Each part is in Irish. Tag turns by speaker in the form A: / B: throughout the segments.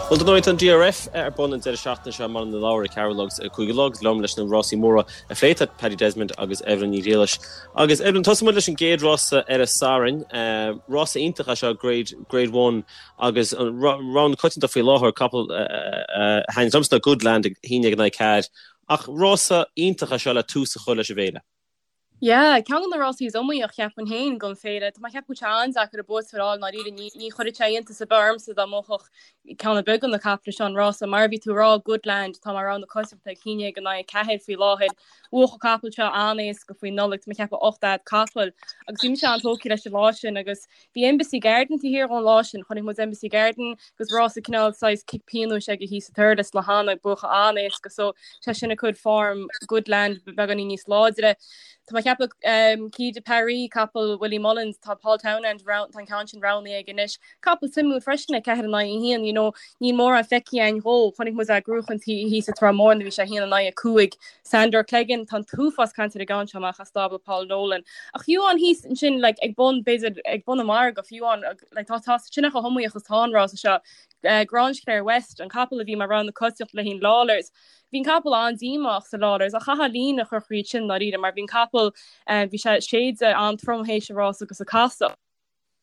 A: Bhuel, dar ndóigh, tá an DRF ar bun an deireadh seachtaine seo i mBaile na Lobhar ag ceathrú a chlog agus ag 5 a chlog. Liom leis na rásaí móra a phlé tá Paddy Desmond agus Evelyn Ní Ghriallais. Agus Evelyn, tosóidh muid leis an gcéad rása ar an Satharn. Rása iontach é seo, Grade, Grade One, agus an rogha na coitianta faoi láthair, capall a thaitníonn liomsa ná Goodland ag 11 in aghaidh 4. Ach rása iontach é seo le tús a chur leis an bhféile.
B: Yeah, ceann de na rásaí is iomaíoch, cheapfainn féin, don féile. Tá mé ag ceapadh go bhfuil sé an-deacair an buaiteoir a fháil, i ndáiríre. Ní, ní chuirfeadh sé iontas ar bith ormsa dá mbuafadh ceann ar bith de na caiple seo an rása. Mar a bhí tú ag rá, Goodland, atá mar rogha na coitianta ag 11 in aghaidh 4 faoi láthair. Bhuaigh an capall seo an-éasca faoi Nollaig, tá mé ag ceapadh 8 fhad capaill. Agus bhí mise an-tógtha leis an lá sin agus Bhí Embassy Garden taobh thiar dhó an lá sin. Chonaic muid Embassy Garden agus rása cineál saghas cic pionóis aige thíos sa Thurles le hAnna, buachan an-éasca so sé sin ag cur form Goodland beagáinín níos láidre. Tá mé ag ceapadh um, Quai de Paris, capall Willie Mullins, tá Paul Townend, tá an ceann sin roghnaithe aige anois. Capall suimiúil freisin ag 4 in aghaidh 1, you know, níl mórán feicthe againn dhó. Chonaic muid é ag gnóchaint thíos sa Trá Mhór nuair a bhí sé 1 in aghaidh 5. Sandor Clegane, tá an t-uafás cainte ar an gceann seo amach as stábla Paul Nolan. Ach fiú amháin thíos ansin like, ag bun, b'fhéidir ag bun an mhargaidh, fiú amháin, like, tá tá sin chomh hiomaíoch is atá an rása seo. Uh, Grangeclare West, an capall a bhí mar rogha na coitianta le haghaidh Lawlor's. Bhí an capall an-díomách sa Lawlor's ach chaithfeá líne a chur thríd sin dáiríre mar bhí an capall uh, bhí sé séidte an-trom théis an rása agus a casadh.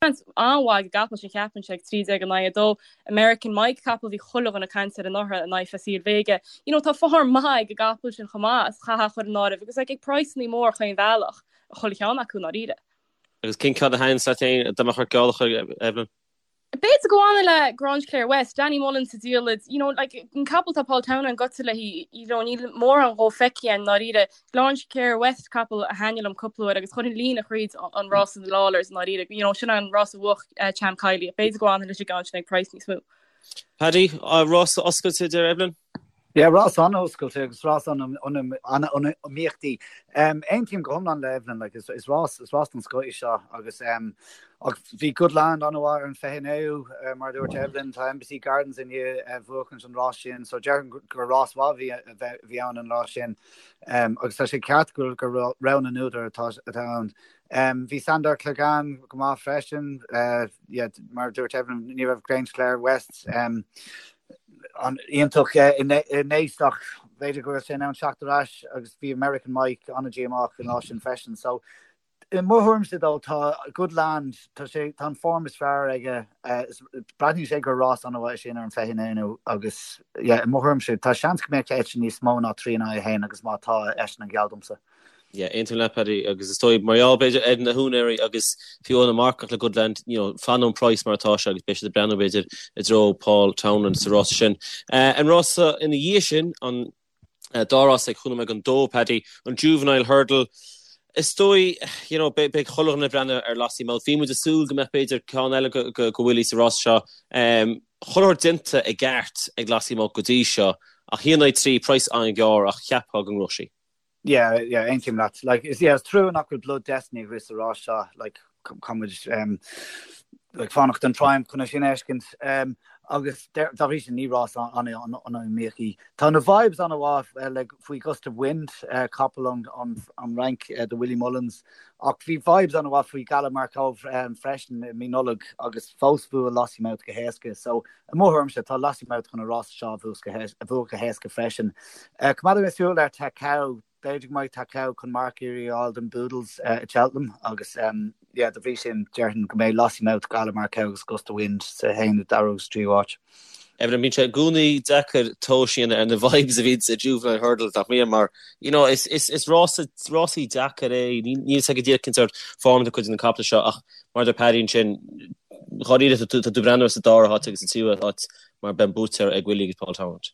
B: Seans an-mhaith ag an gcapall sin cheapfainnse ag 13 in aghaidh 2. American Mike, capall a bhí chuile dhuine ag caint air anuraidh in aghaidh Facile Vega. You know, tá form maith ag an gcapall sin chomh maith, is chaithfeá a chur in áireamh agus like, ag praghsannaí mór chaon bhealach, chuile cheann acu i ndáiríre.
A: Agus cén ceann a thaitníonns leat féin dá mbeadh ort geall a chur, Evelyn?
B: B'fhéidir go bhfanfainn le Grangeclare West, Danny Mullins sa diallait, you know, like, an capall tá Paul Townend gaibhte léi, you know, níl mórán dhó feicthe againn i ndáiríre. Grangeclare West capall a thaitnigh liom cúpla uair agus chuirfinn líne thríd an rás in Lawlor's i ndáiríre, you know, sin an rás a bhuaigh Champ Kiely. B'fhéidir go bhfanfainn leis an gceann sin ag praghas níos mó.
A: Paddy, rás oscailte, deir Evelyn?
C: Yeah, rás an-oscailte agus rás an-iomaíochtaí. Aontaím go hiomlán le Evelyn, like, is, is rás, is rás den scoth í seo agus um, ach bhí Goodland an-mhaith ar an 29ú, uh, mar a dúirt Evelyn, tá Embassy Gardens i ndiaidh uh, buachaint an rás sin, so déarfainn gur rás mhaith bhí, bhí ann an lá sin. Um, agus tá sé ceart gur, gur rogha na n-údar atá, atá ann. Um, bhí Sandor Clegane go maith freisin, uh, yeah, mar a dúirt Evelyn, ní raibh Grangeclare West um, an iontach i Naas ach b'fhéidir go bhfuil sé in ann teacht ar ais agus bhí American Mike an-díomách an lá sin freisin. So i mo thuairimse dó tá Goodland tá sé tá an form is fearr aige breathnaíonn sé gur rás an-mhaith é sin ar an 29ú agus yeah, i mo thuairimse tá seans go mbeadh eisean níos mó ná 3 in aghaidh 1 agus má tá eisean an geall domsa.
A: Yeah, aontaím leat Paddy, agus is dóigh mar gheall b'fhéidir ar na húinéirí agus fiú na marcach le Goodland, you know, fanann an price mar atá sé agus beidh siad ag breathnú b'fhéidir i dtreo Paul Townend sa rása sin. An rása ina dhiaidh sin, an dá rás ag chúig nóiméad don dó, Paddy, an Juvenile Hurdle, is dóigh, you know, beidh chuile dhuine ag breathnú ar Lossiemouth. Bhí muid ag súil go mbeadh b'fhéidir ceann eile go Willie sa rása seo. Chuile shórt déanta i gceart ag Lossiemouth go dtí seo, ach 1 in aghaidh 3, price an-ghearr ach cheapfá go ngnóthódh sí.
C: Yeah, yeah, aontaím leat. Like, is, yeah, is trua nach bhfuil Blood Destiny ag rith sa rás seo, like, caithfidh muid, um, like, fanacht don Triumph chun é sin a fheiscint. Um, agus dá bhrí sin ní rás an-iomaíoch í. Tá na vibes an-mhaith uh, like, faoi Gust of Wind, uh, capall ón, an, an Fhrainc uh, do Willie Mullins, ach bhí vibes an-mhaith faoi Gala Markov um, freisin i mí Nollag agus fós bhuaigh Lossiemouth go héasca. So, I mo thuairimse, tá Lossiemouth chun an rás seo a bhuachan go héasca freisin. Coimeádfaidh mé súil ar Takao. B'fhéidir go mbeidh Takao chun marcaíocht a fháil don Boodles i Cheltenham agus yeah, dá bhrí sin, déarfainn go mbeidh Lossiemouth, Gala Markov agus Gust of Wind sa haon, dara agus tríú háit.
A: Evelyn, bíonn sé i gcónaí deacair tomhas a dhéanamh ar na vibes a bhíonn sa Juvenile Hurdle, nach mbíonn? Mar, you know, is, is, is rása, rásaí deacair é. Níl a fhios agat go díreach cén sórt form atá cuid de na caiple seo ach Mar a deir Paddy ansin, dháiríre tá tú ag breathnú ar sa dara háit agus sa tríú háit mar beidh an buaiteoir ag Willie agus Paul Townend.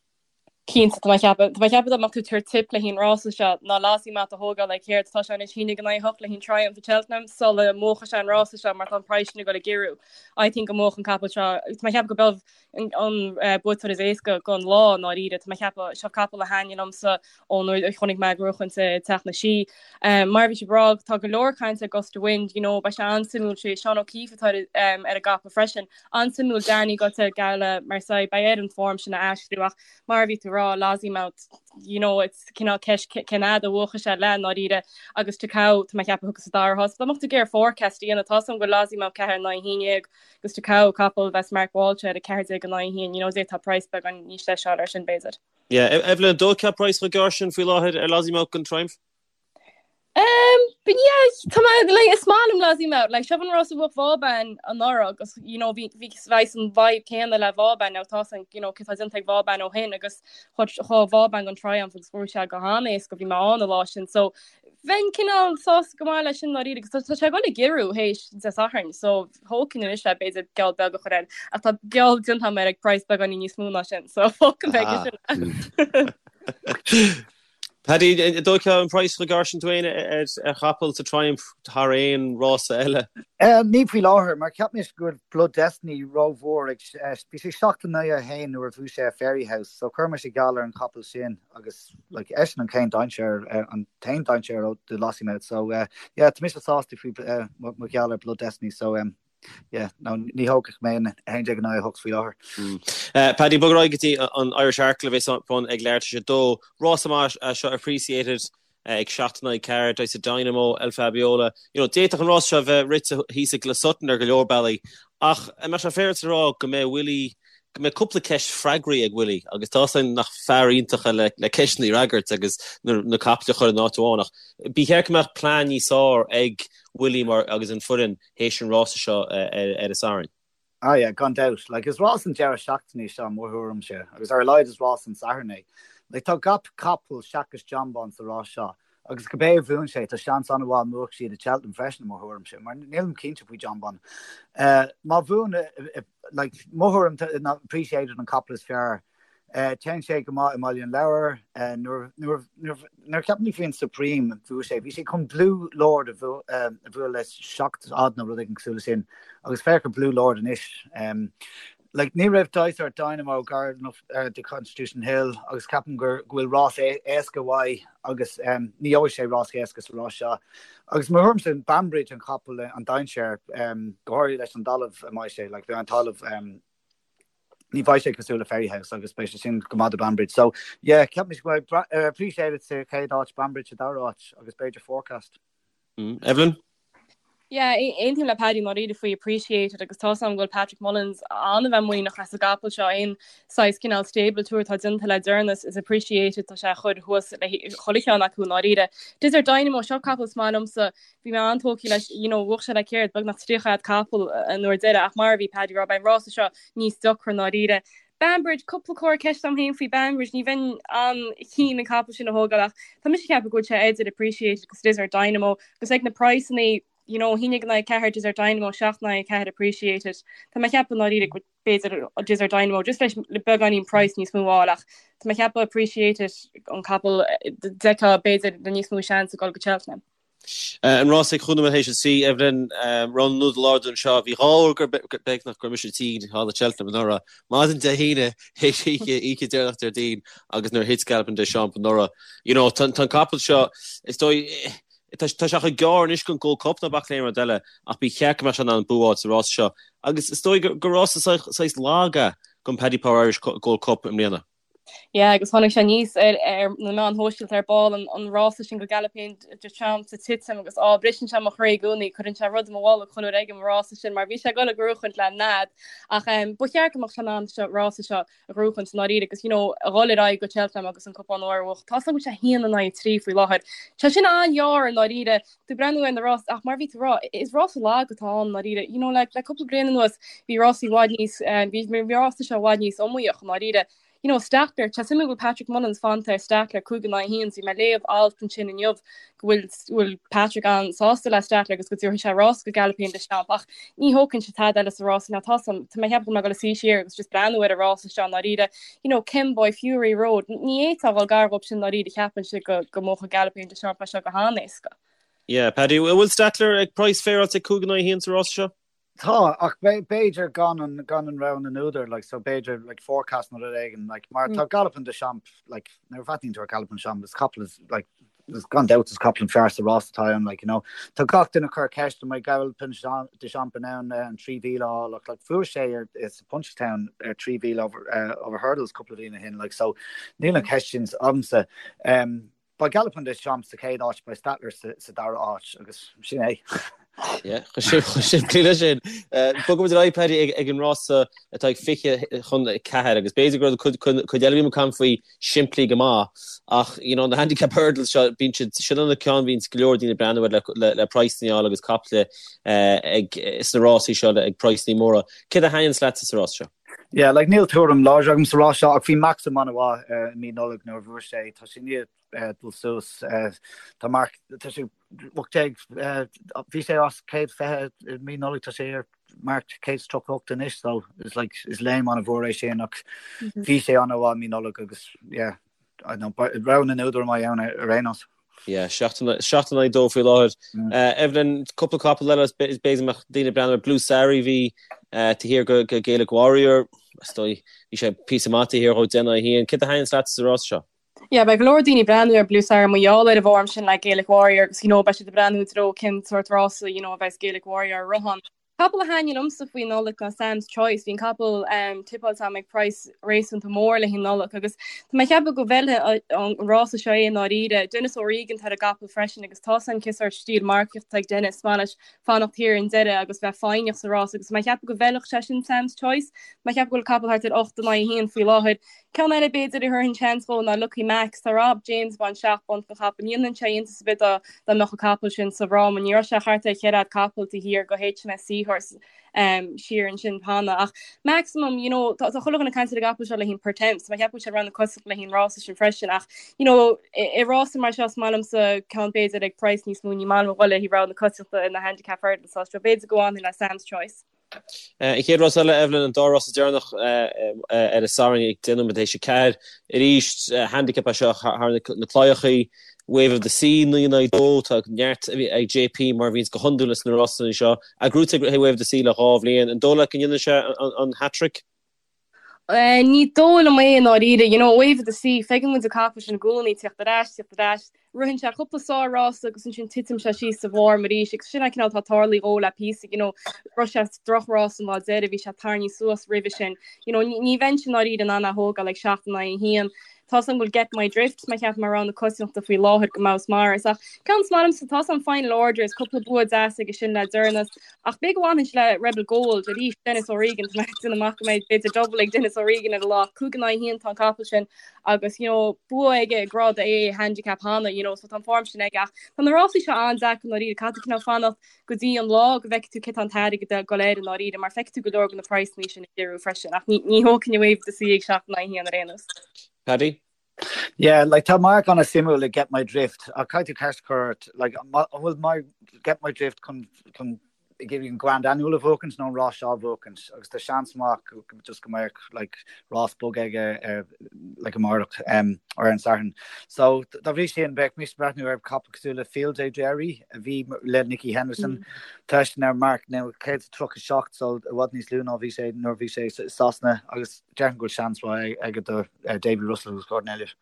B: Cinnte, tá mé ag ceapadh, tá mé ag ceapadh dá mbeadh tú ag tabhairt tip le haghaidh an rása seo, ná Lossiemouth a thógáil like céard, tá sé anois 11 in aghaidh 8 le haghaidh an Triumph i Cheltenham sula mbuachfaidh sé an rása seo mar tá an praghas sin ag dul ag giorrú. I think go mbuafadh an capall seo, tá mé ag ceapadh go b'é an buaiteoir is éasca don lá i ndáiríre. Tá mé ag ceapadh, seo capall a thaitnigh liomsa ón uair a chonaic mé ag gnóchaint i Teach na Sí. Mar a bhí sibh ag rá, tá go leor cainte ar Gust of Wind, you know, beidh sé an-suimiúil, sé Seán O'Keeffe atá ar an gcapall freisin. An-suimiúil Danny gaibhte ar Gala Marseille, beidh air an form sin a aistriú ach mar a bhí tú ag rá. rá Lossiemouth you know it's cineál ceist cén fhad a bhuachfaidh sé le i ndáiríre agus Takao tá mé ag ceapadh a thiocfas sa dara háit. Dá mbeadh tú ag iarraidh forecast a dhéanamh tá 's agam go bhfuil Lossiemouth 4 in aghaidh 11 agus Takao capall a bheas Mark Walsh air 14 in aghaidh 1 you know d'fhéadfá praghas beagán níos deise a fháil air sin b'fhéidir.
A: Yeah, Evelyn, an dtógfá praghas chomh gearr sin faoi láthair ar Lossiemouth don Triumph?
B: Um, but yeah, tá mé, like, is maith liom Lossiemouth, like, seo an rás a bhuaigh Vauban anuraidh agus, you know, bhí, bhí saghas an vibe céanna le Vauban, now tá san, you know, cé tá déanta ag Vauban ó shin agus chuaigh Vauban don Triumph agus bhuaigh sé go han-éasca, bhí mé ann an lá sin, so bheinn cineál sásta go maith leis sin dáiríre agus tá sé ag dul ag giorrú théis Dé Sathairn, so thógfainn anois é b'fhéidir geall beag a chur air, ach tá geall déanta agam air ag praghas beagáinín níos mó ná sin, so fágfaidh mé aige
A: sin é. Paddy, an dtógfá an praghas chomh gearr sin tú féin ar chapall sa Triumph thar aon rása eile?
C: Ní faoi láthair, mar cheap mise go bhfuil Blood Destiny rómhór ag, bhí sé 7 in aghaidh 1 nuair a bhuaigh sé Fairyhouse, so chuir mise geall ar an chapall sin agus like eisean an chéad dainséar, an t-aon dainséar do Lossiemouth, so yeah, tá mise sásta faoi mo gheall ar Blood Destiny, so Yeah, no, ní thógfadh mé an 11 in aghaidh 8 faoi
A: láthair. Paddy, bog ar aghaidh go dtí an Irish Arkle a bheas ar bun ag leathuair tar éis a dó. Rás maith é seo Appreciated ag 7 in aghaidh 4, Desert Dynamo, El Fabiola. You know, d'fhéadfadh an rás seo a bheith rite thíos i Closutton ar go leor bealaí, ach an mbeadh sé féaráilte a rá go mbeidh Willie, go mbeidh cúpla ceist freagraí ag Willie agus tá 's againn nach fear iontach é le le ceisteanna a fhreagairt agus na na caiple a chur in áit amháin ach ba cheart go mbeadh plean níos fearr ag Willie mar agus an foireann théis an rása seo ar an Satharn.
C: Ah yeah, gan dabht. Like, is rás an deireadh seachtaine é seo, i mo thuairimse, agus ar a laghad is rás an Sathairn é. Like, tá gach capall seachas Jonbon sa rás seo, agus cibé a bhuann sé, tá seans an-mhaith mbuafaidh siad i Cheltenham freisin, i mo thuairimse, mar nílim cinnte faoi Jonbon. Eh, má bhuann, like, mo thuairim ná Appreciated an capall is fearr. Téann sé go maith i mBaile an Lobhair. Nuair a cheapann tú faoin Supreme bhuaigh sé, bhí sé chun Blue Lord a bhualadh le 7 fhad nó rud éigin cosúil le sin agus féach ar Blue Lord anois. Like, ní raibh Dysart Dynamo gar enough do Constitution Hill agus ceapaim go bhfuil rás éasca uaidh agus ní gheobhaidh sé rás éasca sa rás seo. Agus mo thuairimse Banbridge an capall an dainséar, go háirithe leis an dtalamh a mbeidh sé, like, bheidh an talamh ní bheidh sé cosúil le Fairyhouse agus beidh sé sin go maith do Banbridge. So, yeah, ceapaim go mbeidh Appreciated sa chéad áit, Banbridge sa dara áit agus b'fhéidir Forecast.
A: Mm. Evelyn?
B: Yeah, aontaím le Paddy ndáiríre faoi Appreciated agus tá 's agam go bhfuil Patrick Mullins an-bheith muiníneach as an gcapall seo aon saghas cineál stable tour atá déanta le deireanas is Appreciated tá sé a chur thuas le chuile cheann acu ndáiríre. Desert Dynamo seo capall is maith liomsa Bhí mé an-tógtha leis, you know, bhuaigh sé le céard, beagnach 30 fhad capall an uair deiridh ach mar a bhí Paddy ag rá, beidh an rása seo níos deacra ndáiríre. Banbridge, cúpla comhartha ceiste agam féin faoi Banbridge, ní bheinn an-keen an capall sin a thógáil ach tá mise ag ceapadh go bhfuil sé idir Appreciated agus Desert Dynamo agus ag na praghsanna, you know, 11 in aghaidh 4 Desert Dynamo, 7 in aghaidh 4 Appreciated. Tá mé ag ceapadh ndáiríre go b'fhéidir Desert Dynamo just leis le beagáinín price níos mó a fháil ach tá mé ag ceapadh Appreciated an capall d'fheicfeá b'fhéidir le níos mó seans ag dul go Cheltenham.
A: An rás ag chúig nóiméad théis a 3, Evelyn, roghnú do lár anseo. Bhí dhá uair gur beagnach go raibh mise tinn thall i Cheltenham anuraidh. Maidin Dé hAoine théis oíche, oíche deireanach Déardaoin agus nuair a thit Galopin Des Champs anuraidh. You know, tá an capall seo, is dóigh, tá sé chomh gearr anois don Gold Cup ná bac le aon rud eile ach ba cheart go mbeadh sé in ann bua a fháil sa rás seo. Agus is dóigh gur rása saghas lag é don Paddy Power Irish Gold Cup i mbliana.
B: Yeah, agus tháinig sé aníos ar ar na meáin shóisialta ar ball an an rása sin go Galopin Des Champs ag titim agus á briseann sé mo chroí i gcónaí, cuireann sé rud i mo bholg chuile uair a fheicim an rása sin mar bhí sé ag dul a ghnóchaint le nead ach um, ba cheart go mbeadh sé in ann seo rása seo a ghnóchaint i ndáiríre agus you know, a dhul ar aghaidh go Cheltenham agus an cupán óir a bhuachan. Tá sé go sé haon in aghaidh 3 faoi láthair. Tá sin an-ghearr i ndáiríre tú breathnú ar na rás ach mar bhí tú rá is rás lag atá ann i ndáiríre. You know, le, le cúpla bliain anuas bhí rásaí i bhfad níos eh, bhí bhí rása seo i bhfad níos iomaíoch i ndáiríre. You know, Stattler, tá suimiúil go bhfuil Patrick Mullins fanta ar Stattler 5 in aghaidh 1, bhí mé ag léamh alt ansin inniu go bhfuil bhfuil Patrick an-sásta le Stattler agus go dtabharfaidh sé rás go Galopin Des Champs ach ní thógfainnse tada eile sa rás now tá tá mé ag ceapadh go mbeidh dul a suí siar agus just breathnú ar an rása seo i ndáiríre. You know, Kemboy, Fury Road, ní fhéadfá a dhul gar dhóibh sin i ndáiríre cheapfainnse go go mbuafadh Galopin Des Champs é seo go han-éasca.
A: Yeah, Paddy, bhfuil Stattler ag praghas féaráilte 5 in aghaidh 1 sa rás seo?
C: Tá, ach b'fhéidir gan an gan an rogha na n-údar, like, so b'fhéidir, like, forecast nó rud éigin, like, mar tá Galopin Des Champs, like, nuair a bhreathnaíonn tú ar Galopin Des Champs, is capall is, like, Gan dabht is capall an fearr sa rás atá ann, like, you know. Tá gach duine ag cur ceist an mbeidh Galopin Des Champs in ann an 3,000 a fháil ach like fuair sé ar sa Punchestown ar 3,000 over, uh, over hurdles cúpla bliain ó shin, like, so níl an cheist sin agamsa. Um, beidh Galopin Des Champs sa chéad áit, beidh Stattler sa, sa dara áit agus sin é.
A: Yeah, chomh simplí leis sin. Bogfaimid ar aghaidh, Paddy, ag an rása atá ag 20 chun 4 agus b'fhéidir go raibh cuid eile a bhí muid ag caint faoi simplí go maith ach you know, na handicap hurdles seo, bíonn siad, sin an ceann a bhíonns go leor daoine ag breathnú air le, le praghsanna a fháil agus caiple ag, sna rásaí seo ag praghsanna móra. Céard a thaitníonns leatsa sa rás seo?
C: Yeah, like níl tuairim láidir agam sa rás seo ach bhí Maxim an-mhaith i mí Nollag nuair a bhuaigh sé, tá sé i ndiaidh dul suas, tá marc, tá sé 18, bhí sé os 120 i mí Nollag, tá sé ar marc 138 anois, so is like, is léim an-mhór é sin ach bhí sé an-mhaith i mí Nollag agus yeah, I don't know, rogha na n-údar a mbeidh ann ar aon nós.
A: Yeah, 7 in aghaidh 2 faoi láthair. Evelyn, cúpla capall eile is b'fhéidir go mbeadh daoine ag breathnú ar Blue Sari bhí taobh thiar go Gaelic Warrior, is dóigh, bhí sé píosa maith taobh thiar dhó 10 in aghaidh 1. Céard a thaitníonns leatsa sa rás seo?
B: Yeah, beidh go leor daoine ag breathnú ar Blue Sari mar gheall ar an bhform sin le Gaelic Warrior agus you know beidh siad ag breathnú i dtreo cén sórt rása you know a bheas Gaelic Warrior ag rith ann. Capall a thaitníonn liomsa faoi Nollaig ná Sam's Choice. Bhí an capall um, tippáilte agam ag praghas réasúnta mór le haghaidh Nollag agus tá mé ag ceapadh go bhfeilfidh an rása seo é i ndáiríre. Denis O'Regan atá ar an gcapall freisin agus tá san cén sórt stíl marcaíochta ag Denis, maith leis fanacht thiar i ndeireadh agus bheith foighneach sa rás agus tá mé ag ceapadh go bhfeilfeadh sé sin Sam's Choice. Tá mé ag ceapadh go bhfuil capall thart ar 8 in aghaidh 1 faoi láthair. Ceann eile b'fhéidir a thabharfainn seans dhó ná Lucky Max. Tá Rob James ag baint 7 bpunt den chapall. Ní dhéanfadh sé iontas ar bith dá dá mbeadh an capall sin sa bhfráma. Ní raibh sé thart ar cheithre fhad capaill taobh thiar go HMS Seahorse siar ansin cheana. Ach Maximum, you know, tá chuile dhuine ag caint ar an gcapall seo le haghaidh Pertemps. Tá mé ag ceapadh go bhfuil sé rogha na coitiantachta le haghaidh an rása sin freisin. Ach, you know, i rása mar seo is maith liomsa ceann b'fhéidir ag praghas níos mó. Ní maith liom a dhul le haghaidh rogha na coitiantachta in na handicap hurdles. So b'fhéidir go bhfanfainn le Sam's Choice.
A: An chéad rás eile, Evelyn, an dá rás deireanach ar an Satharn ag 10 nóiméad théis a 4. Arís, handicap é seo thar na claíochaí. Wave of the Sea, 9 in aghaidh 2. Tá neart ag JP mar a bhíonns go hiondúil sna rásanna seo. Gnóthaithe ag Wave of the Sea le dhá bhliain. An dóigh leat go ndéanfaidh sé an hat-trick?
B: Ní dóigh liom é i ndáiríre. You know, Wave of the Sea, feiceann muid an capall sin i gcónaí, tíocht ar ais, tíocht ar ais. Ritheann sé cúpla sár-rása agus ansin titeann sé síos sa bhform arís agus sin an cineál atá tarlaithe dhó le píosa, you know, rith sé droch-rás an lá deiridh, bhí sé tarraingthe suas roimhe sin. You know, ní bheinnse i ndáiríre in ann é a thógáil ag 7 in aghaidh 1. Tá's agam go bhfuil Get My Drift, mé ag ceapadh mar rogha na coitiantachta faoi láthair go maith is maras. Ach ceann is maith liomsa, tá's agam Final Order is cúpla bua deas aige sin le deireanas. Ach b'fhéidir go bhfanfainnse le Rebel Gold arís, Denis O'Regan, tá mé ag déanamh amach go mbeidh b'fhéidir double ag Denis O'Regan ar an lá. 5 in aghaidh 1 tá an capall sin agus you know, bua aige i grád A handicap cheana, you know, so tá an form sin aige. Ach tá na rásaí seo an-deacair i ndáiríre, caithfidh tú cineál fanacht go dtí an lá go bhfeicfidh tú cé tá an t-airgead ag dul air i ndáiríre, mar feicfidh tú go leor de na praghsanna sin ag athrú freisin. Ach ní, ní thógfainn Wave of the Sea ag 7 in aghaidh 1 ar aon nós.
A: Paddy?
C: Yeah, like tá marc an-suimiúil ag Get My Drift ach caithfidh tú ceist a chur ort, like an bhfuil my, Get My Drift chun, chun ag iarraidh an Grand Annual a bhuachaint nó an rás seo a bhuachaint agus tá seans maith go, go, just go mbeadh like rás bog aige ar like amárach um, ar an Satharn. So dá bhrí sin bheadh mise ag breathnú ar capall cosúil le Field Day Jerry a bhí le Nicky Henderson. Mm. Tá eisean ar marc now 137 so i bhfad níos lú ná bhí sé nuair a bhí sé i Sasana agus déarfainn go bhfuil seans mhaith aige do Davy Russell agus Gordon Elliott.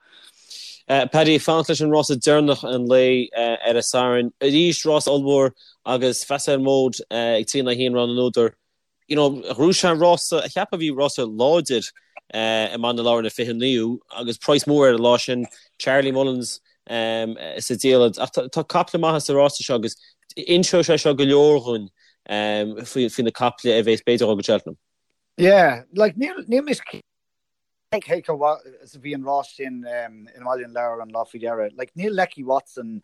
A: Paddy, fanacht leis an rása deireanach an lae ar an Satharn. Arís rás ollmhór agus Facile Mode ag 3 in aghaidh 1 rogha na n-údar. You know, ghnóthaigh sé an rása, a cheapfá a bhí rása láidir i mBaile na Lobhar ar an 29ú agus praghas mór air an lá sin, Charlie Mullins sa diallait. Ach tá caiple maithe sa rása seo agus inseoidh sé seo go leor dhúinn faoi na caiple a bheas b'fhéidir ag dul go Cheltenham.
C: Yeah, like níl níl mise cé chomh maith is a bhí an rás sin i mBaile na Lobhar an lá faoi dheireadh. Like níl Lecky Watson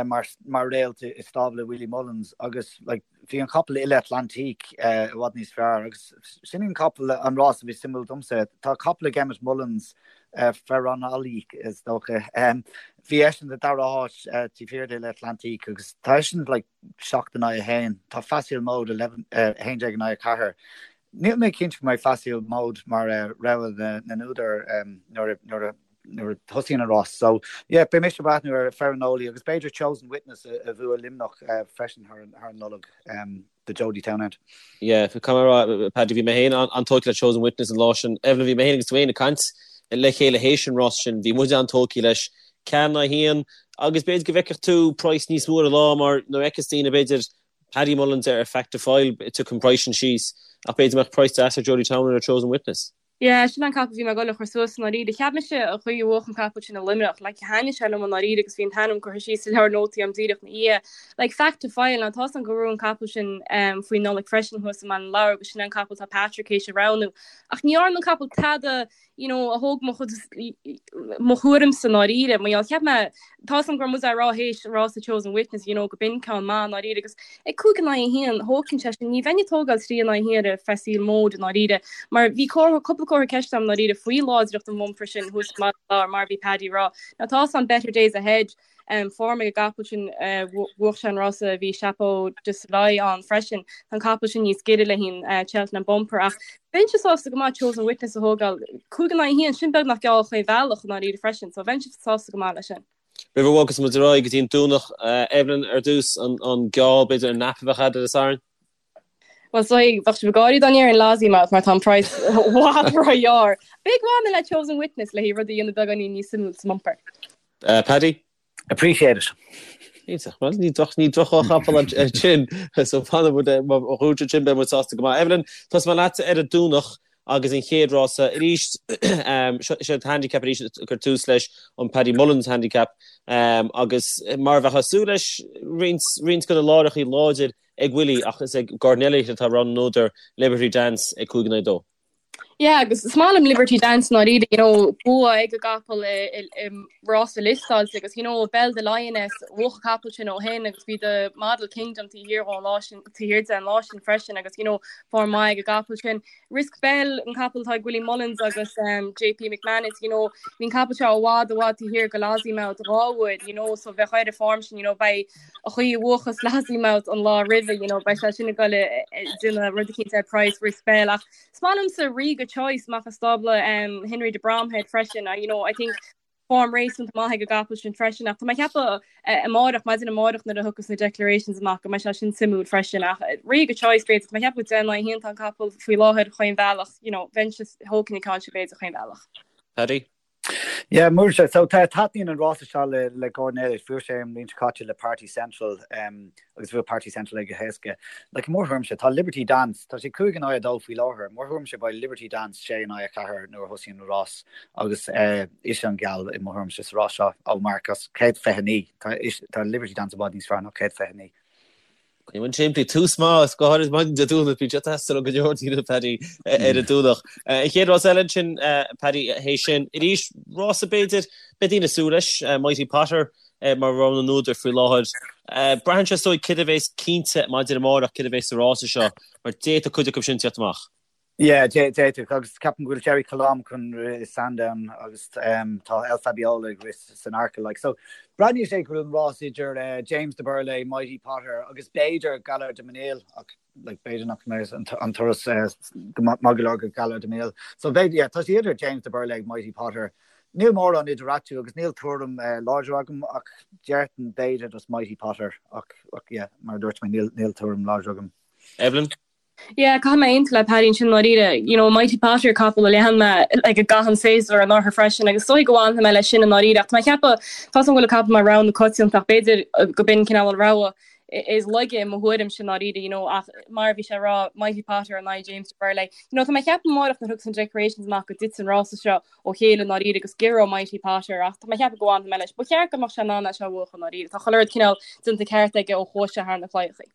C: mar mar réalt i stábla Willie Mullins agus like bhí an capall Ile Atlantique i bhfad níos fearr agus sin an capall an rás a bhí suimiúil domsa. Tá capall ag Emmet Mullins Ferranoli is dócha. Bhí eisean sa dara háit taobh thiar d'Ile Atlantique agus tá eisean like 7 in aghaidh 1. Tá Facile Mode 11 in aghaidh 4. Níl mé cinnte go mbeidh Facile Mode mar rogha na n-údar nuair a thosaíonn an rás. So, yeah, beidh mise ag breathnú ar Ferranoli agus b'fhéidir Chosen Witness a bhuaigh Luimneach freisin thar an Nollaig do Jody Townend.
A: Yeah, caithfidh mé a rá, Paddy, bhí mé féin an-tógtha le Chosen Witness an lá sin. Evelyn, bhí mé féin agus tú féin ag caint le chéile théis an rás sin. Bhí muid an-tógtha leis. 4 in aghaidh 1 agus b'fhéidir go bhfeicfeadh tú praghas níos mó ar an lá mar nuair a fheiceas daoine b'fhéidir Paddy Mullins ar Fact To File tiocfaidh an praghas sin síos ach b'fhéidir go mbeadh praghas deas ar Jody Townend ar Chosen Witness.
B: Yeah, sin an capall a bhí mé ag dul a chur suas i ndáiríre. Cheap mise an chaoi a bhuach an capall sin i Luimneach, like thaitnigh sé liom i ndáiríre agus bhí an t-ainm curtha síos sa leabhar nótaí a'm díreach ina dhiaidh. Like Fact To File, now tá's a'm go raibh an capall sin um, faoin Nollaig freisin thuas i mBaile na Lobhar agus sin an capall tá Patrick théis a roghnú. Ach ní dhearna an capall tada you know, a thóg mo chuid mo thuairimse i ndáiríre. Mar gheall, cheap mé, tá's a'm go raibh muid á rá théis rása Chosen Witness, you know, go b'in ceann maith i ndáiríre agus ag 5 in aghaidh 1, thógfainn sé sin, ní bheinn ag tógáil 3 in aghaidh 1 ar Facile Mode i ndáiríre, mar bhí comhartha, cúpla comhartha ceiste a'm i ndáiríre faoi láidreacht an bhumpar sin thuas i mBaile na Lobhar mar a bhí Paddy ag rá. Now tá's a'm better days ahead, form ag an gcapall sin, bhuach sé an rása a bhí Chapeau de Soleil ann freisin. Tá an capall sin níos giorra le haghaidh an Cheltenham Bumper ach bheinnse sásta go maith Chosen Witness a thógáil. 5 in aghaidh 1, sin beagnach geall chaon bhealach i ndáiríre freisin, so bheinnse sásta go maith leis sin.
A: Roimh a bhogas muid ar aghaidh go dtí an Domhnach, Evelyn, ar dtús, an geall, b'fhéidir, an nap a bheadh agat ar an Satharn?
B: Bhuel, so bheadh sibh ag gáirí dá ndéarfainn Lossiemouth mar tá an praghas i bhfad róghearr. B'fhéidir go bhfanfainn le Chosen Witness le haghaidh rud a dhéanamh beagáinín níos suimiúil sa mbumper.
A: Paddy?
C: Appreciate it.
A: Iontach. Bhuel, ní droch ní droch-chapall ansin. So fanfaidh muid má dhúirt sin beidh muid sásta go maith. Evelyn, tosóidh mé leat ar an Domhnach agus an chéad rása arís. Seo an handicap arís ag cur tús leis an Paddy Mullins handicap agus mar a bheifeá ag súil leis roinnt roinnt de na láithreacha láidir ag Willie ach is ag Gordon Elliott atá rogha na n-údar Liberty Dance ag 5 in aghaidh 2.
B: Yeah, agus is maith liom Liberty Dance i ndáiríre, you know, bua ag an gcapall i, i, i rása liostáilte agus, you know, Belle de Lioness, bhuach an capall sin ó shin agus bhí The Model Kingdom taobh thiar dhó an lá sin, taobh thiar de an lá sin freisin agus, you know, form maith ag an gcapall sin. Risk Bell, an capall atá ag Willie Mullins agus um, JP McManus, you know, bhí an capall seo i bhfad i bhfad taobh thiar go Lossiemouth dhá uair, you know, so bheadh air an form sin, you know, beidh an chaoi a bhuachas Lossiemouth an lá roimhe, you know, beidh sé sin ag dul ag déanamh rud eicínt ar price Risk Bell ach is maith liomsa Riga Choice amach as stábla um, Henry de Bromhead freisin, you know, I think form réasúnta maith ag an gcapall sin freisin ach tá mé ag ceapadh eh, amárach, maidin amárach nuair a thiocfas na declarations amach go mbeidh sé sin suimiúil freisin ach eh, Riga Choice b'fhéidir, tá mé ag ceapadh go 10 in aghaidh 1 tá an capall faoi láthair chaon bhealach, you know, bheinnse thógfainn an ceann sin b'fhéidir chaon bhealach.
A: Paddy?
C: Yeah, muirse. So tá taitníonn an rása seo le le Gordon Elliott. Bhuaigh sé an bhliain seo caite le Party Central um, agus bhuaigh Party Central é go héasca. Like, i mo thuairimse, tá Liberty Dance, tá sé 5 in aghaidh 2 faoi láthair. I mo thuairimse beidh Liberty Dance 6 in aghaidh 4 nuair a thosaíonn an rás agus uh, ise an geall i mo thuairimse sa rás seo ó marc as 129. Tá, is, tá Liberty Dance i bhfad níos fearr ná 129.
A: An simplí tús maith go háirid maidin Dé Domhnaigh bíonn sé ag teastáil ó go leor daoine Paddy ar an Domhnach. An chéad rás eile ansin Paddy théis sin arís rása b'fhéidir beidh daoine ag súil leis Mighty Potter mar rogha na n-údar faoi láthair. Braitheann sé is dóigh céard a bheas cinnte maidir amárach céard a bheas sa rása seo mar d'fhéadfadh cuid acu sin tíocht amach.
C: Yeah, d'fhéadfadh, agus ceapaim go bhfuil Gerri Colombe chun rith i Sandown agus tá El Fabiolo ag rith san Arkle. Like, so breathnaíonn sé go bhfuil an rás idir James de Berlais, Mighty Potter agus b'fhéidir Gaillard Du Mesnil, ach like, b'fhéidir nach mbeidh an turas go maith go leor go Gaillard Du Mesnil. So b'fhéidir, yeah, tá sé idir James de Berlais, Mighty Potter. Níl mórán idir eatarthu agus níl tuairim láidir agam ach déarfainn b'fhéidir just Mighty Potter ach, ach yeah, mar a dúirt mé, níl, níl tuairim láidir agam.
A: Evelyn?
B: Yeah, caithfidh mé aontú le Paddy ansin i ndáiríre. You know, Mighty Potter capall a lean mé like i gcaitheamh an tséasúir anuraidh freisin agus is dóigh go bhfanfaidh mé leis sin i ndáiríre ach tá mé ag ceapadh tá 's agam go bhfuil an capall mar rogha na coitianta ach b'fhéidir go b'in cineál an rogha is laige i mo thuairimse i ndáiríre, you know, ach mar a bhí sé ag rá Mighty Potter in aghaidh James de Berlais. You know, tá mé ag ceapadh amárach nuair a thiocfas na declarations amach go dtitfidh an rása seo ó chéile i ndáiríre agus giorróidh Mighty Potter ach tá mé ag ceapadh go bhfanfaidh mé leis. Ba cheart go mbeadh sé in ann é seo a bhuachan i ndáiríre. Tá chuile rud cineál déanta ceart aige ó chuaigh sé thar na claíochaí.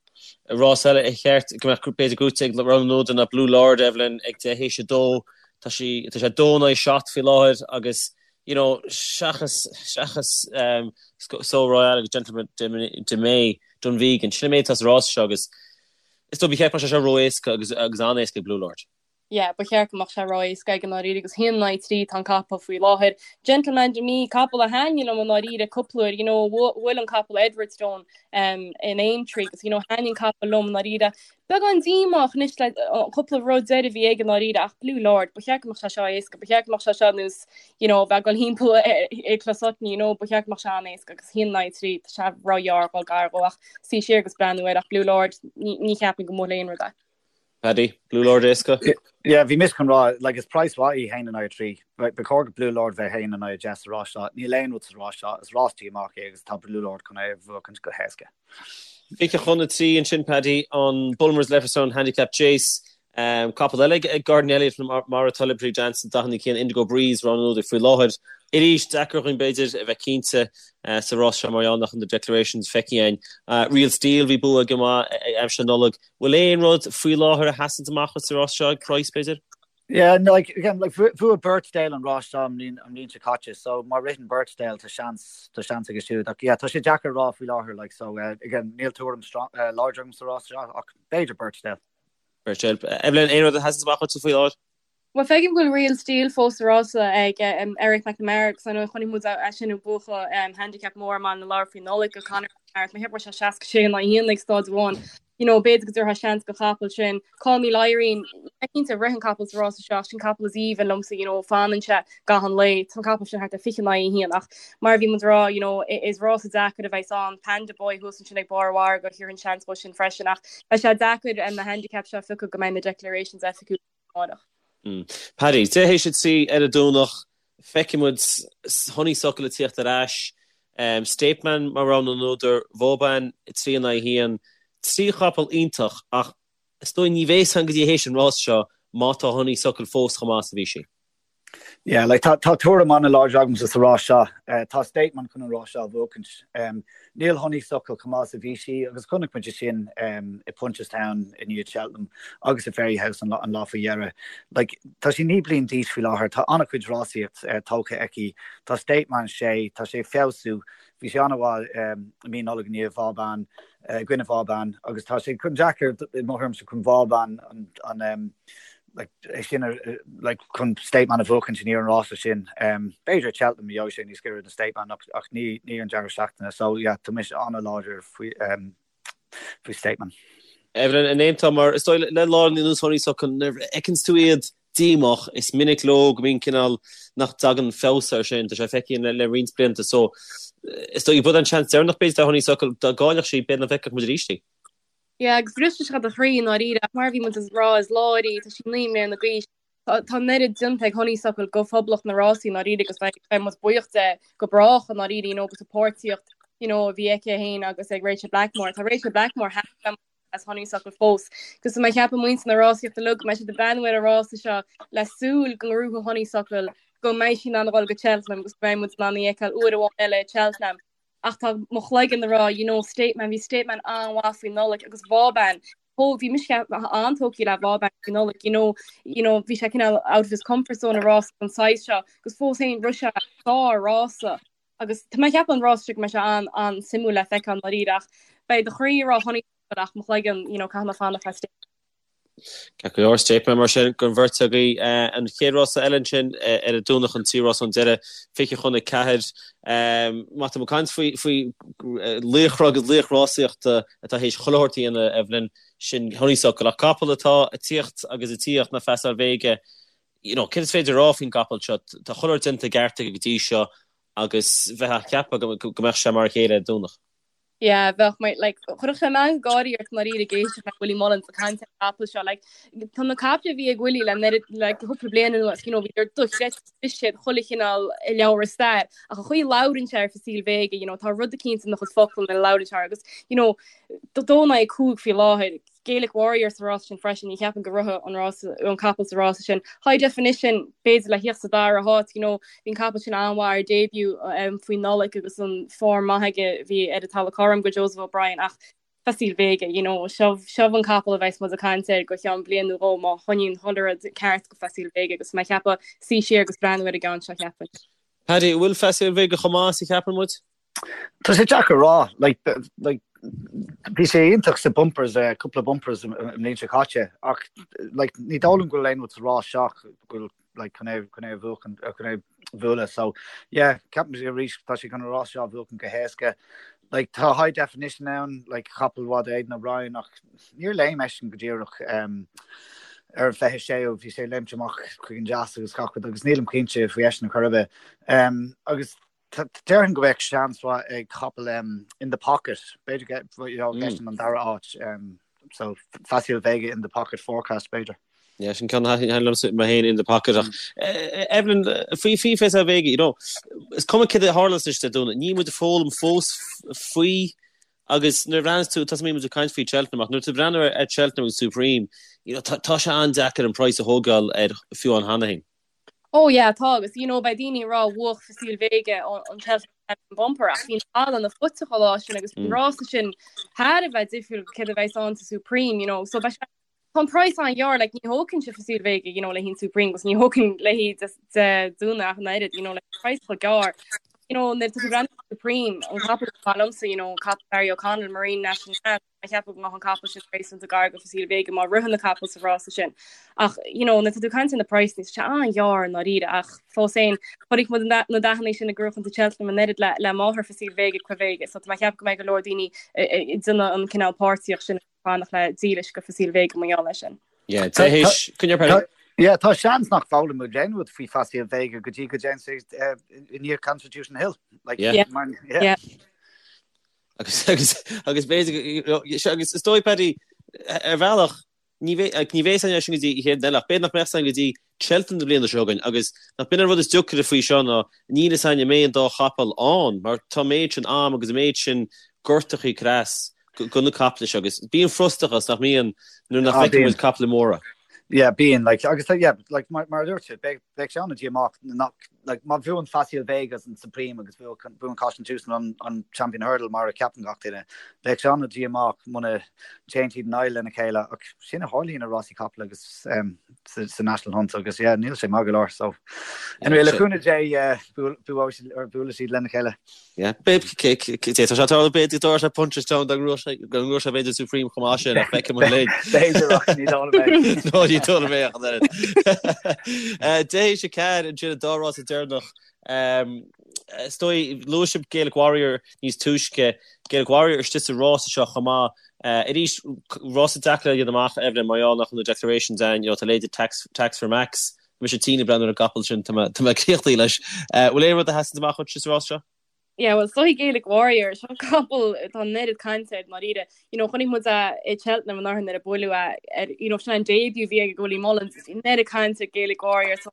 A: Rás eile ar cheart go mbeadh b'fhéidir gnóite ag rogha na n-údar ná Blue Lord, Evelyn, ag 10 théis 2. Tá sí, tá sé 2 in aghaidh 7 faoi láthair agus you know seachas, seachas um, Sceau Royal agus Gentleman De Mee, Dunvegan, sin an méid atá sa rás seo agus is dóigh ba cheart go mbeadh sé seo ró-éasca agus, agus an-éasca ag Blue Lord.
B: Yeah, ba cheart go mbeadh sé ró-éasca aige i ndáiríre agus 1 in aghaidh 3 tá an capall faoi láthair. Gentleman De Mee, capall a thaitnigh liom i ndáiríre cúpla uair, you know, bhuail an capall Edwardstone um, in Aintree agus you know, thaitnigh an capall liom i ndáiríre. Beagán díomách anois le cúpla rud deiridh a bhí aige i ndáiríre ach Blue Lord, ba cheart go mbeadh sé seo éasca, ba cheart go mbeadh sé seo nós, you know, bheith ag dul thimpeall i Closutton, you know, ba cheart go mbeadh sé an-éasca agus 1 in aghaidh 3, tá sé róghearr dhul gar dhó ach suí siar agus breathnú air ach Blue Lord, ní, ní cheapaim go mbuailfidh aon rud é.
A: Paddy, Blue Lord éasca?
C: Yeah, bhí mise chun rá, like, is praghas mhaith í 1 in aghaidh 3. Ba chóir do Blue Lord bheith 1 in aghaidh 10 sa rás seo. Níl aon rud sa rás seo, is rás díomách é agus tá Blue Lord chun é a bhuachaint go héasca.
A: 20 chun 3 ansin, Paddy, an Bulmers Leopardstown Handicap Chase. Capall eile ag Gordon Elliott mar atá Liberty Dance, 41 Indigo Breeze, rogha an údair faoi láthair. Arís, deacair dhúinn b'fhéidir a bheith cinnte sa rás seo mar gheall nach bhfuil na declarations feicthe againn. Real Steel, bhí bua aige maith aimsir na Nollag. Bhfuil aon rud faoi láthair a sheasann amach sa rás seo ag praghas, b'fhéidir?
C: Yeah, no, like, again, like, bhuaigh Birchdale an rás seo an bhliain seo caite, so má ritheann Birchdale tá seans, tá seans aige siúd. Ach yeah, tá sé deacair a rá faoi láthair, like, so, uh, again, níl tuairim strong, uh, láidir agam sa rás seo, ach b'fhéidir Birchdale.
A: Birchdale. Evelyn, aon rud a sheasann amach duit faoi láthair?
B: Bhuel, feicim go bhfuil Real Steel fós sa rása ag Eric McNamara agus ar ndóigh chonaic muid é sin ag buachan handicap mór i mBaile na Lobhar faoi Nollaig do Conor McNamara. Tá mé ag ceapadh go raibh sé 66 in aghaidh 1 ag staid amháin. You know, b'fhéidir go dtabharfá seans don chapall sin. Call Me Lyrene, níl mé cinnte an rithfidh an capall sa rása seo ach sin capall is aoibhinn liomsa, you know, fanann sé gach aon lae. Tá an capall sin thart ar 20 in aghaidh 1 ach mar a bhí muid ag rá, you know, is rása deacair a bheas ann. Panda Boy thuas ansin ag barr an mhargaidh, thabharfainn seans dó sin freisin ach beidh sé deacair na handicaps seo a phiocadh go mbeidh na declarations oifigiúla. amárach.
A: Paddy, 3 théis 3 ar an Domhnach, feicfidh muid Honeysuckle ag tíocht ar ais, State Man mar rogha na n-údar, Vauban 3 in aghaidh 1, 3 chapall iontach ach is dóigh ní bheidh a fhios againn go dtí théis an rás seo má tá Honeysuckle fós chomh maith is a bhí sí.
C: Yeah, like, tá, tá tuairim an-láidir agamsa sa rás seo. Uh, tá State Man chun an rás seo a bhuachaint. Um, níl Honeysuckle chomh maith is a bhí sí agus chonaic muid é sin um, i Punchestown i ndiaidh Cheltenham agus i Fairyhouse an, an lá faoi dheireadh. Like, tá sí 9 bliain d'aois faoi láthair, tá an-chuid rásaíocht uh, tógtha aici. Tá State Man 6, tá sé ag feabhsú. Bhí sé an-mhaith um, i mí Nollag i ndiaidh Vauban, uh, i gcoinne Vauban agus tá sé chun deacair i mo thuairimse chun Vauban an, an um, like, é sin like, chun State Man a bhuachaint i ndiaidh an rása sin. Um, b'fhéidir Cheltenham gheobhaidh sé níos giorra do State Man ach, ach ní, ní an deireadh seachtaine. So yeah, tá mise an-láidir faoi, um, faoi State Man.
A: Evelyn, an aontófá mar is dóigh le lár na nós Honeysuckle nuair a fheiceanns tú iad díomách, is minic leo go mbíonn cineál nach dtagann feabhas air sin, tá sé feicthe le, le roinnt blianta so is dóigh b'é an seans deireanach b'fhéidir do Honeysuckle dá gcaillfeadh sí b'fhéidir nach bhfeicfeadh muid arís í.
B: Yeah, agus brisfeadh sé do chroí i ndáiríre, ach mar a bhí muid ag rá, is láir í, tá sí 9 mbliana d'aois, tá tá an oiread déanta ag Honeysuckle go phoblacht na rásaí i ndáiríre agus beidh beidh muid buíoch de go brách i ndáiríre, you know, agus an páirtíocht, you know, a bhí aici féin agus ag Rachel Blackmore. Tá Rachel Blackmore thar a bheith as Honeysuckle fós. Agus tá mé ag ceapadh muintir na rásaíochta uilig go mbeidh siad ag breathnú ar an rása seo le súil go ngnóthóidh Honeysuckle go mbeidh sí in ann a dhul go Cheltenham agus go mbeidh muid in ann í a fheiceáil uair amháin eile i Cheltenham. Ach tá mo chloigeann ag rá, you know, State Man, bhí State Man an-mhaith faoi Nollaig agus Vauban, thóg, bhí mise an-tógtha le Vauban faoi Nollaig, you know, you know, bhí sé cineál out of his comfort zone i rás den saghas seo agus fós féin rith sé sár-rása agus tá mé ag ceapadh an rás seo go mbeidh sé an-an-suimiúil le feiceáil i ndáiríre ach beidh do chroí ag rá Honeysuckle ach mo chloigeann, you know, caithfidh mé fanacht le State
A: Ceart go leor, State Man mar sin don bheirt agaibh. An chéad rása eile ansin ar an Domhnach an tríú rás ón deireadh, 20 chun 4. Má tá muid ag caint faoi faoi laochra agus laoch rásaíochta atá théis chuile shórt a dhéanamh, Evelyn, sin Honeysuckle. Ach capall atá ag tíocht agus ag tíocht ná Facile Vega, you know, céard is féidir a rá faoin gcapall seo? Tá chuile shórt déanta i gceart aige go dtí seo agus bheifeá ag ceapadh go mbeadh sé mar a chéile ar an Domhnach.
B: Yeah, bheadh mé, like, chuirfeadh sé meangadh gáirí ort i ndáiríre ag éisteacht le Willie Mullins ag caint ar an gcapall seo, like, tá na caiple a bhí ag Willie le oiread, like, cúpla bliain anuas, you know, bhí siad dochreidte, bhris siad chuile chineál i leabhar stair, ach an chaoi a labhrann sé ar Facile Vega, you know, tá rud eicínt ina chuid focal nuair a labhrann sé agus, you know, 2 in aghaidh 5 faoi láthair, Gaelic Warrior sa rás sin freisin, ní cheapaim go rithfidh an rás, an capall sa rása sin. High Definition, b'fhéidir le thíocht sa dara háit, you know, bhí an capall sin an-mhaith ar debut um, faoi Nollaig agus an form maith aige bhí ar an talamh cothrom go Joseph O'Brien ach Facile Vega, you know, seo, seo an capall a bheas muid ag caint air go cheann bliain nó dhó má choinníonn chuile rud ceart go Facile Vega agus mé ag ceapadh suí siar agus breathnú ar an gceann seo
A: cheapfainn. Paddy, an bhfuil Facile Vega chomh maith is a cheapann muid?
C: Tá sé deacair a rá. Like, like, bhí sé iontach sa bumpers, uh, cúpla bumpers i mbliain seo caite, ach like, ní dóigh liom go bhfuil aon rud sa rás seo go bhfuil like, chun é, chun é a bhuachan, uh, chun é a bhualadh. So, yeah, ceapaim arís tá sé chun an rás seo a bhuachan go héasca. Like, tá high definition ann, like, capall mhaith Aidan O'Brien, ach níor léim eisean go díreach um, ar an 26ú, bhí sé léimt amach chuig an deas agus gach rud, agus nílim cinnte faoi eisean ar chor ar bith. Um, agus Déarfainn go mbeadh seans mhaith ag capall In The Pocket, b'fhéidir go gheobhadh eisean an dara háit. So Facile Vega In The Pocket forecast b'fhéidir.
A: Yeah, sin ceann a thaitin liomsa mé féin in the pocket ach Evelyn, faoi faoi Facile Vega, you know, is cuma céard a tharlas anois Dé Domhnaigh, níl muid ag foghlaim fós faoi agus nuair a bhreathnaíos tú, tá muid ag caint faoi Cheltenham ach nuair tú ag breathnú ar Cheltenham agus Supreme, you know, tá tá sé an-deacair an praghas a thógáil air fiú ann cheana féin.
B: Oh yeah, tá agus you know beidh daoine ag rá bhuach Facile Vega an Cheltenham Champion Bumper ach bhí an talamh an-fhuiteach an lá sin agus bhí an rása sin thar a bheith difriúil go céard a bheas ann sa Supreme, you know, so beidh sé Tá an praghas an-ghearr, like ní thógfainnse Facile Vega, you know, le haghaidh an Supreme agus ní thógfainn léi Dé Domhnaigh ach an oiread, you know, like praghas chomh gearr. You know, nuair atá tú ag breathnú ar Supreme, an capall is maith liomsa, you know, capall Barry O'Connell, Marine Nationale, mé ag ceapadh go mbeadh an capall sin réasúnta gar go Facile Vega má ritheann na capaill sa rás sin. Ach, you know, nuair atá tú ag caint ar na praghsanna, tá sé an-ghearr i ndáiríre ach fós féin, chonaic muid na dathanna sin ag gnóthachtaint i Cheltenham an oiread le le máthair Facile Vega, Quevega, so tá mé ag ceapadh go mbeidh go leor daoine ag déanamh an cineál páirtíocht sin fanacht le dílis go Facile Vega mar gheall air sin.
A: Yeah, tá coinne Paddy.
C: Yeah, tá seans nach bhfoghlaimeoidh muid aon rud faoi Facile Vega go dtí go dtéann sé i ndiaidh Constitution Hill.
A: Like, yeah. Mar, yeah. yeah. Agus agus agus b'fhéidir agus is dóigh Paddy ar bhealach ní bheidh ní bheidh san sin go dtí chéad eile ach b'fhéidir nach mbeadh san go dtí Cheltenham na bliana seo chugainn agus nach b'in an rud is deacaire faoi seo ná níl a fhios againn an mbeidh an dá chapall ann mar tá an méid sin am agus an méid sin gortachaí creas go na caiple seo agus bíonn frustrachas nach mbíonn nuair nach bhfeiceann muid caiple móra.
C: Yeah, bíonn, like, agus yeah, like, mar, mar a dúirt tú, beidh, beidh sé an-díomách nach, like, má bhuann Facile Vega an Supreme agus buann Constitution an, an Champion Hurdle mar a ceapann gach duine, beidh sé an-díomách muna dtéann siad in aghaidh lena chéile ach sin a tharlaíonn i rásaí capall agus um, sa, sa National Hunt agus yeah, níl sé maith go leor so anyway, le cúnamh Dé uh, buailfidh siad lena chéile.
A: Yeah, tá sé tarlú b'fhéidir go dtarlódh sé Punchestown dá ngnóthódh sé b'fhéidir Supreme chomh maith sin ach feicfidh muid linn.
C: B'fhéidir ach ní dóigh liom
A: é. No ní dóigh liom é ach an oiread. 10 théis 4 ansin an dá rás deireanach. Is dóigh luaigh sibh Gaelic Warrior níos túisce. Gaelic Warrior istigh sa rása seo chomh maith. Arís rása deacair a dhéanamh amach Evelyn mar gheall nach bhfuil na declarations ann, you know, tá leithéidí Tax, Tax for Max. Tá mise tinn ag breathnú ar an gcapall sin, tá mé críochnaithe leis. Bhfuil aon rud a sheasann amach dhuit sa rás seo?
B: Yeah, well, so Gaelic Warrior, seo capall tá an oiread cainte air i ndáiríre. You know, chonaic muid é i Cheltenham anuraidh nuair a buaileadh é ar, you know, sin an debut a bhí ag Willie Mullins, an oiread cainte ar Gaelic Warrior so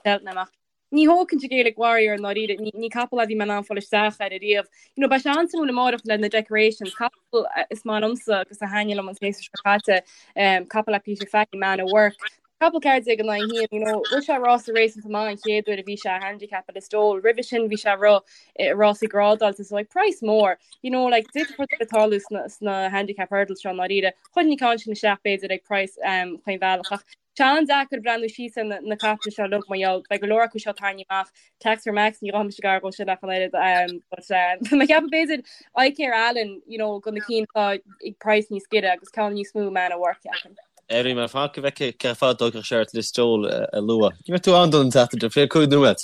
B: Cheltenham ach ní thógfainnse Gaelic Warrior i ndáiríre, ní, ní capall é a bhí mé in ann fáil isteach air ariamh. You know, beidh sé an-suimiúil amárach le na decorations, capall is maith liomsa agus a thaitnigh liom an séasúr seo caite, um, capall le Peter Fahy, Man at Work. Capall 14 in aghaidh 1, you know, rith sé rása réasúnta maith an chéad uair a bhí sé i handicap i Listowel. Roimhe sin bhí sé ag rith i rásaí grádáilte, so like price mór, you know, like d'fhéadfadh rud ar bith tarlú sna, sna handicap hurdles seo i ndáiríre. Chuirfinn an ceann sin isteach b'fhéidir ag price um, chaon bhealach ach tá sé an-deacair breathnú síos ar na, na caiple seo uilig mar gheall beidh go leor acu seo tarraingthe amach. Tax for Max ní ghabhfaidh mise gar dhó sin ach an oiread um, but um, mé ag ceapadh b'fhéidir Icare Allen, you know, go na cinn atá ag price níos giorra agus ceann níos mó Man at Work ceapaim.
A: Éirí mar fan go bhfeicfidh cé fad a dtógfadh sé ort Listowel a lua. Ní raibh tú ann don tseachtain seo, 25 nóiméad.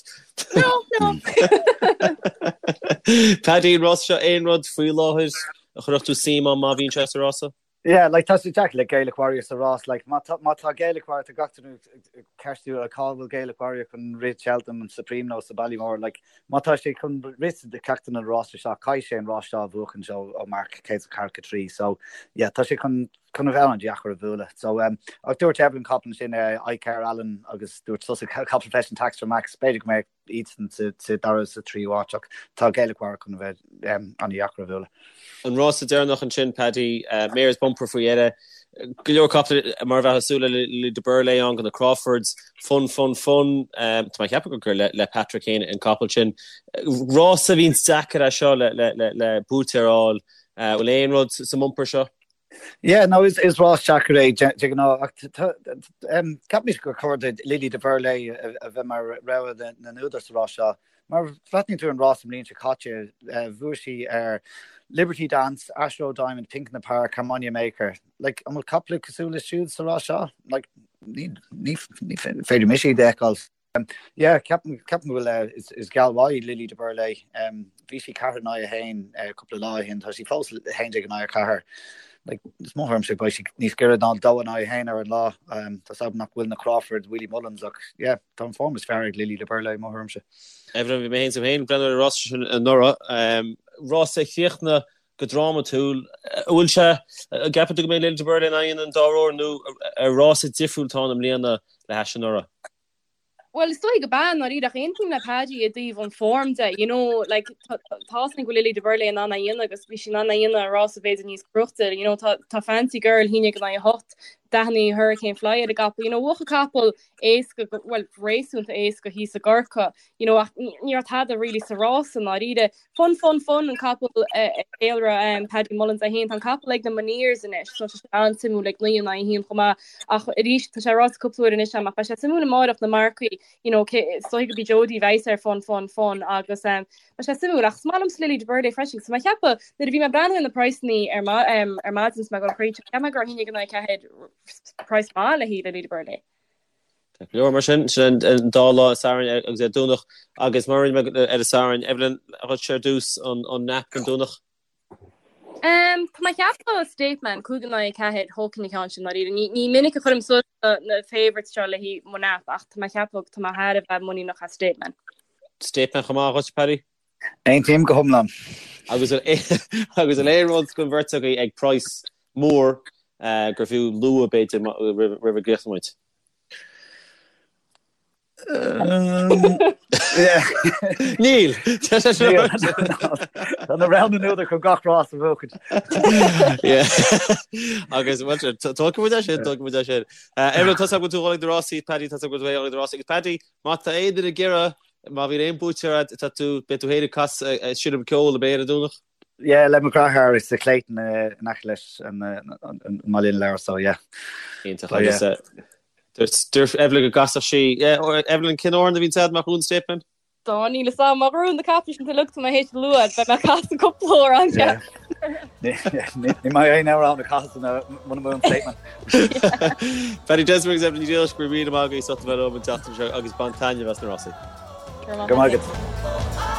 B: No, no.
A: Paddy, an rás seo aon rud faoi láthair a chuirfeadh tú suim ann má bhíonn sé sa rása?
C: Yeah, like tá sé deacair le Gaelic Warrior sa rás, like má tá má tá Gaelic Warrior tá gach duine ag ceistiú cá bhfuil Gaelic Warrior chun rith Cheltenham an Supreme nó sa Ballymore, like má tá sé chun rith sa ceachtar de na rásaí seo caithfidh sé an rás seo a bhuachan ó marc 104-3 so yeah tá sé chun chun a bheith an-deacair a bhualadh. So, um, ach dúirt Evelyn capall ansin uh, Icare Allen agus dúirt tusa capall freisin Tax for Max, b'fhéidir go mbeadh iadsan sa, sa dara sa tríú háit ach tá Gaelic Warrior chun a bheith um, an-deacair a bhualadh.
A: An rása deireanach ansin, Paddy, uh, Mares Bumper faoi dheireadh. Go leor capall mar a bheifeá ag súil le Lily de Burley ann go na Crawfords, fun, fun, fun. Um, tá mé ag ceapadh gur le, le Patrick féin an capall sin. Rása a bhíonn deacair é seo le, le, le, le buaiteoir a fháil. Uh, bhfuil aon rud sa mbumper seo?
C: Yeah, no, is, is rás deacair é de ghnáth ach ceapaimse gur chóir do Lily de Burley a bheith mar rogha na n-údar sa rás seo. Mar bhreathnaíonn tú ar an rás an bhliain seo caite, bhuaigh sí ar Liberty Dance, Ashroe Diamond, Pink in the Park, Harmonia Maker. Like, an bhfuil caiple cosúil leis siúd sa rás seo? Like, ní, ní, ní féidir mise iad a fheiceáil. Yeah, ceapaim go bhfuil, is geall mhaith í Lily de Burley. Bhí sí 4 in aghaidh 1 cúpla lá ó shin, tá sí fós 11 in aghaidh 4. Like, is mo thuairimse beidh sí níos giorra ná 2 in aghaidh 1 ar an lá. Tá 's agam nach bhfuil na Crawfords, Willie Mullins ach yeah, tá an form is fearr ag Lily de Burley, mo thuairimse.
A: Evelyn, bhí mé féin féin ag breathnú ar an rás sin anuraidh. Rás a chríochnaigh. go drámatúil. An bhfuil sé, an gceapann tú go mbeidh Lily de Burley in ann an dá uair nó ar rása difriúil atá ann i mbliana le hais anuraidh?
B: Bhuel, is dóigh gurb ea, i ndáiríre, ach aontaím le Paddy i dtaobh an form de, you know, like, tá a fhios againn go bhfuil Lily de Burley in ann é a dhéanamh agus bhí sí in ann é a dhéanamh i rása b'fhéidir níos cruachta, you know, tá, tá Fancy Girl 1-8, 49 Hurricane Fly ar an gcapall, you know, bhuaigh an capall éasca, bhuel, réasúnta éasca thíos i gCorcaigh, you know, ach ní raibh tada really sa rása i ndáiríre. Fun Fun Fun an capall a cheiliúradh Paddy Mullins é féin. Tá an capall ag na Moneers anois so tá sé an-suimiúil ag 9 in aghaidh 1 chomh maith ach arís tá sé ráite cúpla uair anois agam ach beidh sé suimiúil amárach na marcaí you know cé is dóigh gurb í Jodie a bheas ar Fun Fun Fun agus um, beidh sé suimiúil ach is maith liomsa Lily de Burley freisin so mé ag ceapadh nuair a bhí mé ag breathnú ar na praghsanna ar ma um, ar maidin is mé ag dul thríd cheap mé go raibh 1-4 praghas maith le haghaidh Lily de Burley.
A: Tá go leor mar sin, sin an dá lá, an Satharn agus ar Domhnach agus mar a rinne mé ar an Satharn, Evelyn, dhuit ar dtús an nap don Domhnach?
B: Um, tá mé ag ceapadh State Man, 5-4, thógfainn an ceann sin dáiríre. Ní, ní minic a chuirim suas na, na favourites seo le haghaidh mo nap ach tá mé ag ceapadh tá mé thar a bheith muiníneach as State Man.
A: State Man chomh maith dhuit, Paddy?
C: Aontaím go hiomlán.
A: Agus agus an aon rud don bheirt agaibh ag praghas mór gur fiú lua b'fhéidir roimh a gcríochnóidh muid? Níl!
C: Tá na roghanna údair chun gach rás a bhuachaint.
A: Agus tógfaidh muid é sin, tógfaidh muid é sin. Evelyn, tá a fhios agam go bhfuil tú ag dul ag na rásaí, Paddy, tá a fhios agam go bhfuil tú ag dul ag na rásaí. Agus Paddy, má tá aon duine ag iarraidh Má bhíonn aon buaiteoir agat, tá tú, beidh tú féin ag casadh, ag seinm ceoil ab é ar an Domhnach?
C: Yeah, le mo dheartháir sa Clayton in aice leis an mBaile na Lobhar, so yeah.
A: Iontach. Agus dúirt Evelyn go gcasfadh sí, yeah, Evelyn, cén amhrán a bhíonn agat má bhuann State Man?
B: Dá níl fhios a'm, má bhuann na capaill sin uilig tá mé théis lua, beidh mé ag casadh cúpla amhrán.
C: Ní maith aon amhrán a chasadh muna mbuann State Man.
A: Paddy Desmond agus Evelyn Ní Dhílis, go raibh míle maith agaibh as ucht a bheith liom an tseachtain seo agus bain taitneamh as na rásaí.
C: Go raibh maith agat.